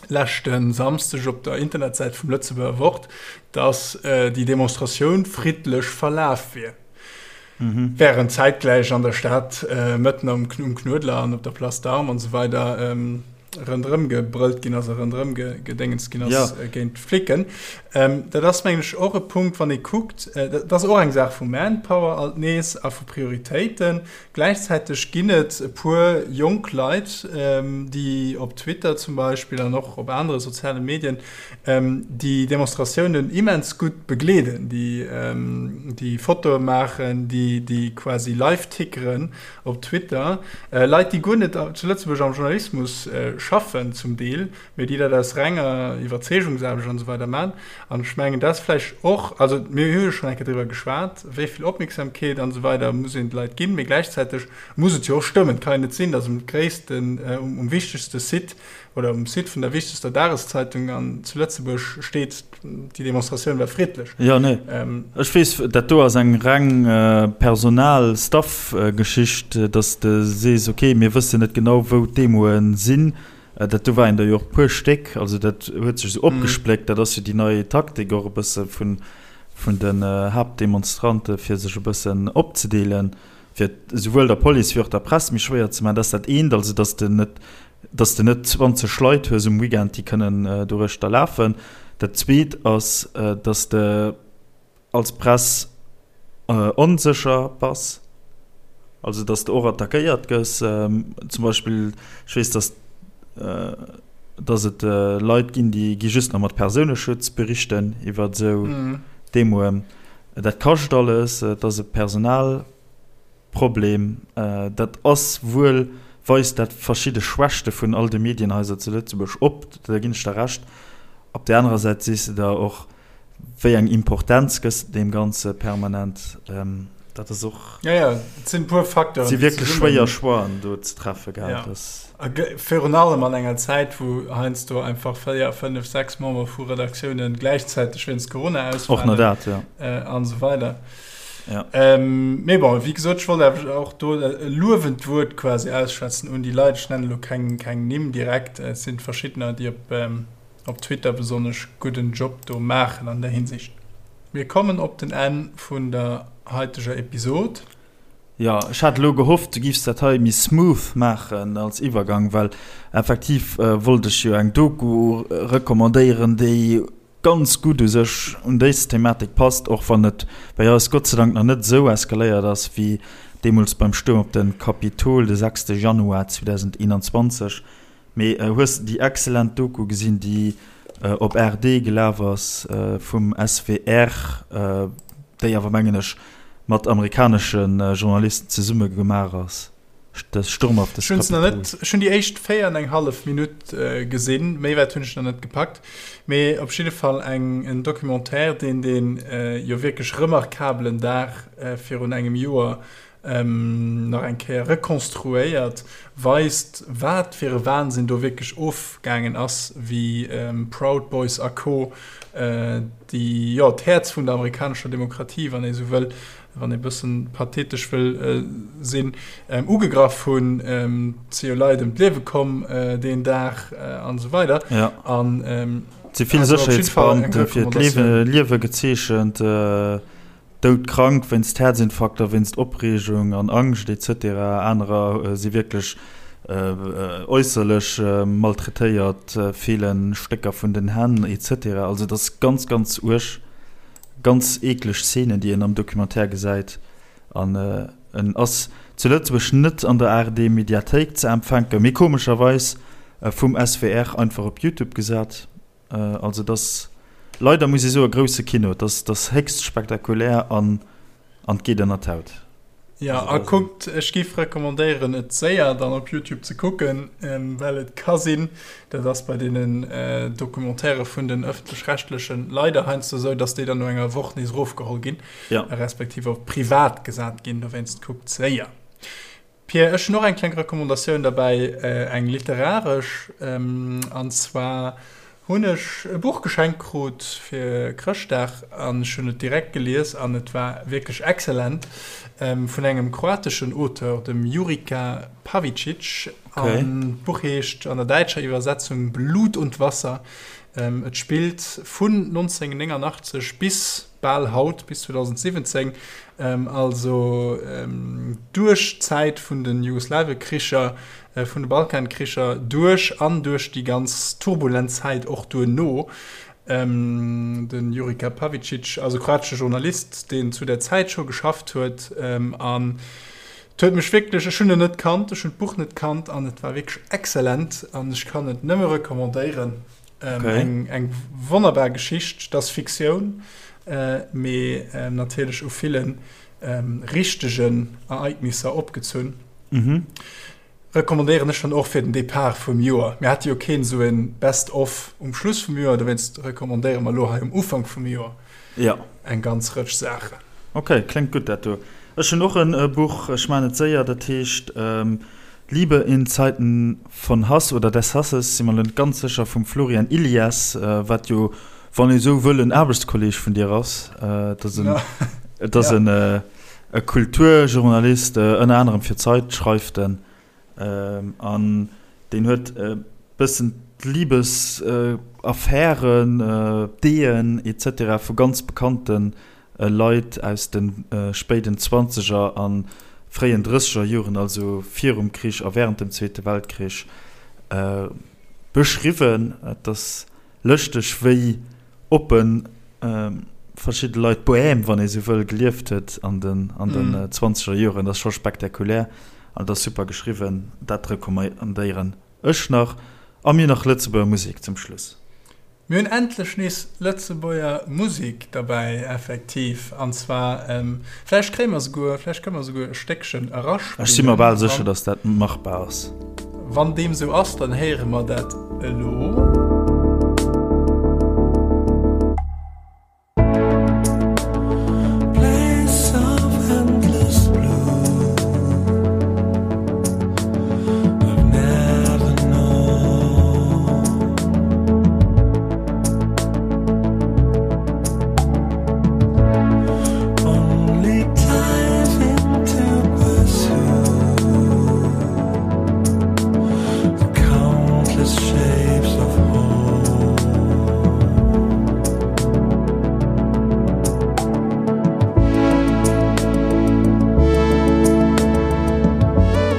leschte Samsdeg op der Internetsäit vum Lëtzebuerger Wort, datt déi Demonstratioun friddlech verlaf wier. Wärend zäitgläich an der Stad mëtten um Knuedler an op der Place d'Armes an esou weider ronderëm gebrëllt ginn ass a ronderëm gedéngens ginn ass géint d'Flicken. Dat ass, mengen ech, och e Punkt, wann ee kuckt, dat ass och eng Saach vu Manpower alt nees a vu Prioritéiten. Gläichzäiteg ginn et e puer jonk Leit, déi op Twitter zum Beispill an och op anere soziale Medien déi Demonstratiounen immens gutt begleeden, déi Fotoe maachen, déi quasi live tickeren op Twitter. Leit, déi guer net zu Lëtzebuerg am Journalismus schaffen zum Deel, mee déi dat aus renger Iwwerzeegungsaarbecht an esou weider maachen. An ech mengen, dat ass vläicht och, also mir hu jo schonn eng Kéier driwwer geschwat, wéi vill Opmierksamkeet an esou weider muss een de Leit ginn, mee gläichzäiteg muss et jo och stëmmen. Et kann jo net sinn, datt um gréissten, um wichtegste Site oder um Site vun der wichtegster Dageszeitung an zu Lëtzebuerg steet, déi Demonstratioun war friddlech. Jo, nee, ech weess, dat do ass eng reng Personal-Staff-Geschicht, datt s de sees, okay, mir wëssen net genau, wou d'Demoe sinn. Dat do waren der jo och e puer Stéck, also dat huet sech esou opgespléckt. Dat ass jo déi nei Taktik och e bësse vun, vun den Haaptdemonstrante fir sech e bëssen opzedeelen, fir et esouwuel der Police wéi och der Press méi schwéier ze maachen. Dat ass dat eent, also datt s de net, datt s de net 20 Leit hues um Weekend, déi kënnen doruechter lafen. Dat zweet ass, datt s de als Press onsécher bass, also dass de och attackéiert gëss. Zum Beispill, ech weess, dass dass et Leit ginn, déi gi just nach mat Persouneschutz berichten iwwer esou Demoen. Dat kascht alles, et ass e Personalproblem. Dat ass wuel, weist dat verschidde Schwächte vun all de Medienhaiser zu Lëtzebuerg op, da ginn ech der Recht. Op där anerer Säit sees de der och, Wéi eng Importenz gëss de deem Ganze permanent? Dat ass och. Ja, ja, et sinn e puer Facteuren, déi zesummen. Si wierklech schwéier Choixen do ze treffe, gell? Ja. A virun allem an enger Zäit, wou heiansdo einfach 4, 5, 6 Member vu Redaktiounen gläichzäiteg wéinst Corona ausfalen. Och nach dat, ja. An esou weider. Ja. Mee bon, wéi gesot, ech wollt awer och do e luewend Wuert quasi ausschwätzen un déi Leit. Ech nennen elo keng, keng Nimm direkt. Et sinn verschiddener, déi op. op Twitter besonnesch gudden Job do maachen an der Hinsicht. Mir kommen op den Enn vun der haiteger Episod. Jo, ech hat elo gehofft du giffs dat hei méi smooth maachen als Iwwergang, well effektiv wollt ech jo eng Doku recommandéieren, déi ganz gutt u sech un dës Thematik passt, och wann et bei eis Gott sei Dank nach net esou eskaléiert ass wéi deemools beim Stuerm op de Kapitol de 6 Januar 2021. Mee hues de déi excellent Doku gesinn, déi op ARD gelaf ass vum SWR, déi awer mengen ech mat amerikanesche Journalisten zesumme gemaach ass, de Sturm auf das Ech hunn se nach net, ech hunn déi éischt 4 an eng hallef Minutt gesinn, méi wäit hunn ech nach net gepackt. Mee op jidde Fall eng en Documentaire, deen dee jo wierklech remarkabelen Dag virun engem Joer nach eng Kéier rekonstruéiert, weist, wat fir e Wahnsinn do wierklech ofgaangen ass, wéi Proud Boys a Co. Déi, jo, d'Häerz vun der amerikanescher Demokratie, wann ee sou wëll, wann ee bëssen pathetesch wëll sinn, ugegraff hunn. Et si jo Leit ëm d'Liewe komm deen Dag an esou weider. An. Et si vill Sécherheetsbeamte fir d'Liewe gezeechent, doudkrank wéinst Häerzinfarkter, wéinst Opreegung an Angscht etc. Anerer si wierklech äusserlech maltraitéiert, feele Stécker vun den Hänn etc. Also et ass ganz, ganz uerg, ganz eekleg Szenen, déi een am Documentaire gesäit. An en ass zu Lëtzebuerg net an der ARD-Mediathéik ze empfänken, mee komescherweis vum SWR einfach op Youtube gesat. Also et ass leider, muss ee soen, grousse Kino. Et ass, et ass héchst spektakulär an an et geet ënner d'Haut. Jo, a kuckt, ech géif recommandéieren, et séier dann op Youtube ze kucken, well et ka sinn, dat ass bei deenen Documentairë vun den Ëffentlech-Rechtlechen leider heiansdo esou, dass déi dann no enger Woch nees erofgeholl ginn. ja. respektiv op privat gesat ginn, dowéinst kuckt séier. Pierre, ech hunn och eng kleng Recommandatioun derbäi, eng literaresch, an zwar hunn ech e Buch geschenkt krut fir Chrëschtdag an ech hunn et direkt gelies an et war wierklech excellent, vun engem kroateschen Auteur, dem Jurica Pavičić, an d'Buch heescht an der däitscher Iwwersetzung Blut und Wasser. Et spillt vun 1989 bis bal haut, bis 2017, also duerch d'Zäit vun de Jugoslawekricher, vun de Balkankricher duerch an duerch déi ganz turbulent Zäit och duerno. De Jurica Pavičić ass e kroatesche Journalist, deen zu där Zäit scho geschafft huet an et huet mech wierklech, ech hunn en net kannt, ech hunn d'Buch net kannt an et war wierklech exzellent an ech kann et nëmme recommandéieren. Ähm, okay. Eng, eng wonnerbar Geschicht, das Fiktioun, äh, mee ähm, natierlech u villen ähm, richtegen Ereignisser opgezunn. Mhm. Recommandéieren ech dann och fir den Depart vum Joer. Mir hate jo keen esou en Best of um Schluss vum Joer, dowéinst recommandéiere mer elo hei um Ufank vum Joer ja. eng ganz Rëtsch Saachen. Okay, kléngt gutt dat do. Ech hunn och en äh, Buch, ech maan et séier, dat heescht ähm, Liebe in Zeiten von Hass oder des Hasses, si mer elo net ganz sécher, vum Florian Illies, wat jo, wann ee sou wëll, en Aarbechtskolleeg vun dir ass. Et ass en, et ass en e Kulturjournalist, ënner anerem fir d'Zeit schreift en, an deen huet e bëssen d'Libesaffären, d'Ehen et cetera vu ganz bekannte Leit aus de spéiden Zwanzeger a fréien Drësseger Joren, also virum Krich a wärend dem Zweete Weltkrich, beschriwwen. Et ass lëschteg, wéi oppe verschidde Leit d'Bohème, wann ee sou wëll, gelieft huet an den Zwanzeger Joren. Dat ass scho spektakulär an et ass super geschriwwen. Dat recommandéieren ech nach. A mir nach Lëtzebuerger Musek zum Schluss. Mir hunn endlech nees Lëtzebuerger Musek derbäi, effektiv. An zwar, vläicht kréie mer souguer, vläicht kënne mer souguer e Stéckchen eraspillen. Ech si mer bal sécher, datt dat machbar ass. Wann deem sou ass, dann héiere mer dat elo.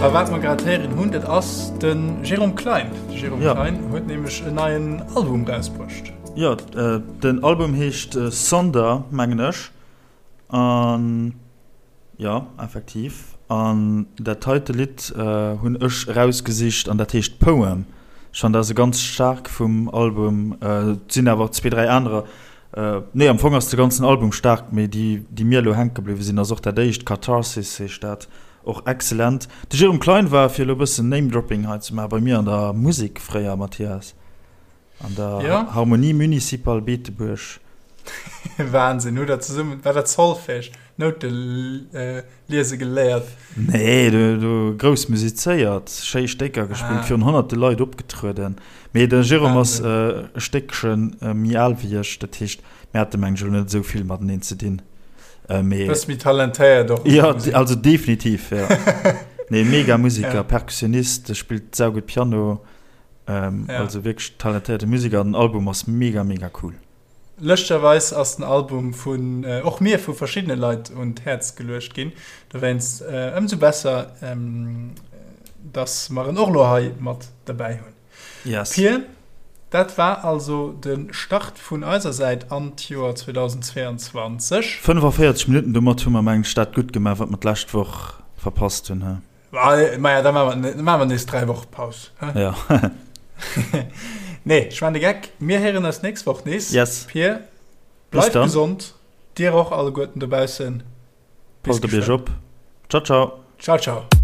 A wat mer grad héieren hunn, dat ass de Jérôme Klein. De Jérôme ja. Klein huet nämlech en neien Album rausbruecht. Ja, äh, den Album heescht äh, Sonder, mengen ech. An jo, effektiv. An dat heite Lidd hunn ech erausgesicht an dat heescht Poem. Ech fannen dat ass e ganz staark vum Album. Et sinn awer och zwee, dräi anerer. Nee, am Fong ass de ganzen Album staark, mee déi, déi mir elo hänke bliwwe sinn, ass och dat éischt, Catharsis heescht dat, och excellent. De Jérôme Klein war, fir elo e bëssen Name-Dropping hei ze maachen, bei mir an der Musek fréier, Mathias. An der ja. Harmonie Municipale Beetebuerg. Wahnsinn, hu der zesummen, war dat Solfège, Noute äh, liese geléiert? Nee, du, du grouss musizéiert, schéi Stécker gespillt, ah. virun honnerte Leit opgetrueden. Mee de Jérôme ass äh, e Stéckchen äh, méi al wéi ech, dat heescht, mir hate meng ech elo net esou vill mateneen ze dinn. Äh, mee, Bësse méi talentéiert och. Ja, also definitiv, ja. Nee, mega Musiker, ja. Perkussionist, spillt saugutt Piano. Also wierklech talentéierte Museker an den Album ass mega mega cool. Lëschterweis ass den Album vun och mir vu verschiddene Leit un d'Häerz geluecht ginn. Dowéinst ëmsou besser, dass mer en och lo hei mat derbäi hunn. Yes. Pir, dat war also de Start vun eiser Säit an d'Joer 2022. 45 Minutten, domat hu mer mengen ech dat gutt gemaach, wat mer d'lescht Woch verpasst hunn, he? Maja, da maache mer nees 3 Woche Paus. Ja. Nee, ech maan de Geck. Mir héieren eis nächst Woch nees. Yes. Pir, bleift gesond. Dir och alleguerten dobaussen. Passt op iech op. Ciao, ciao. Ciao, ciao.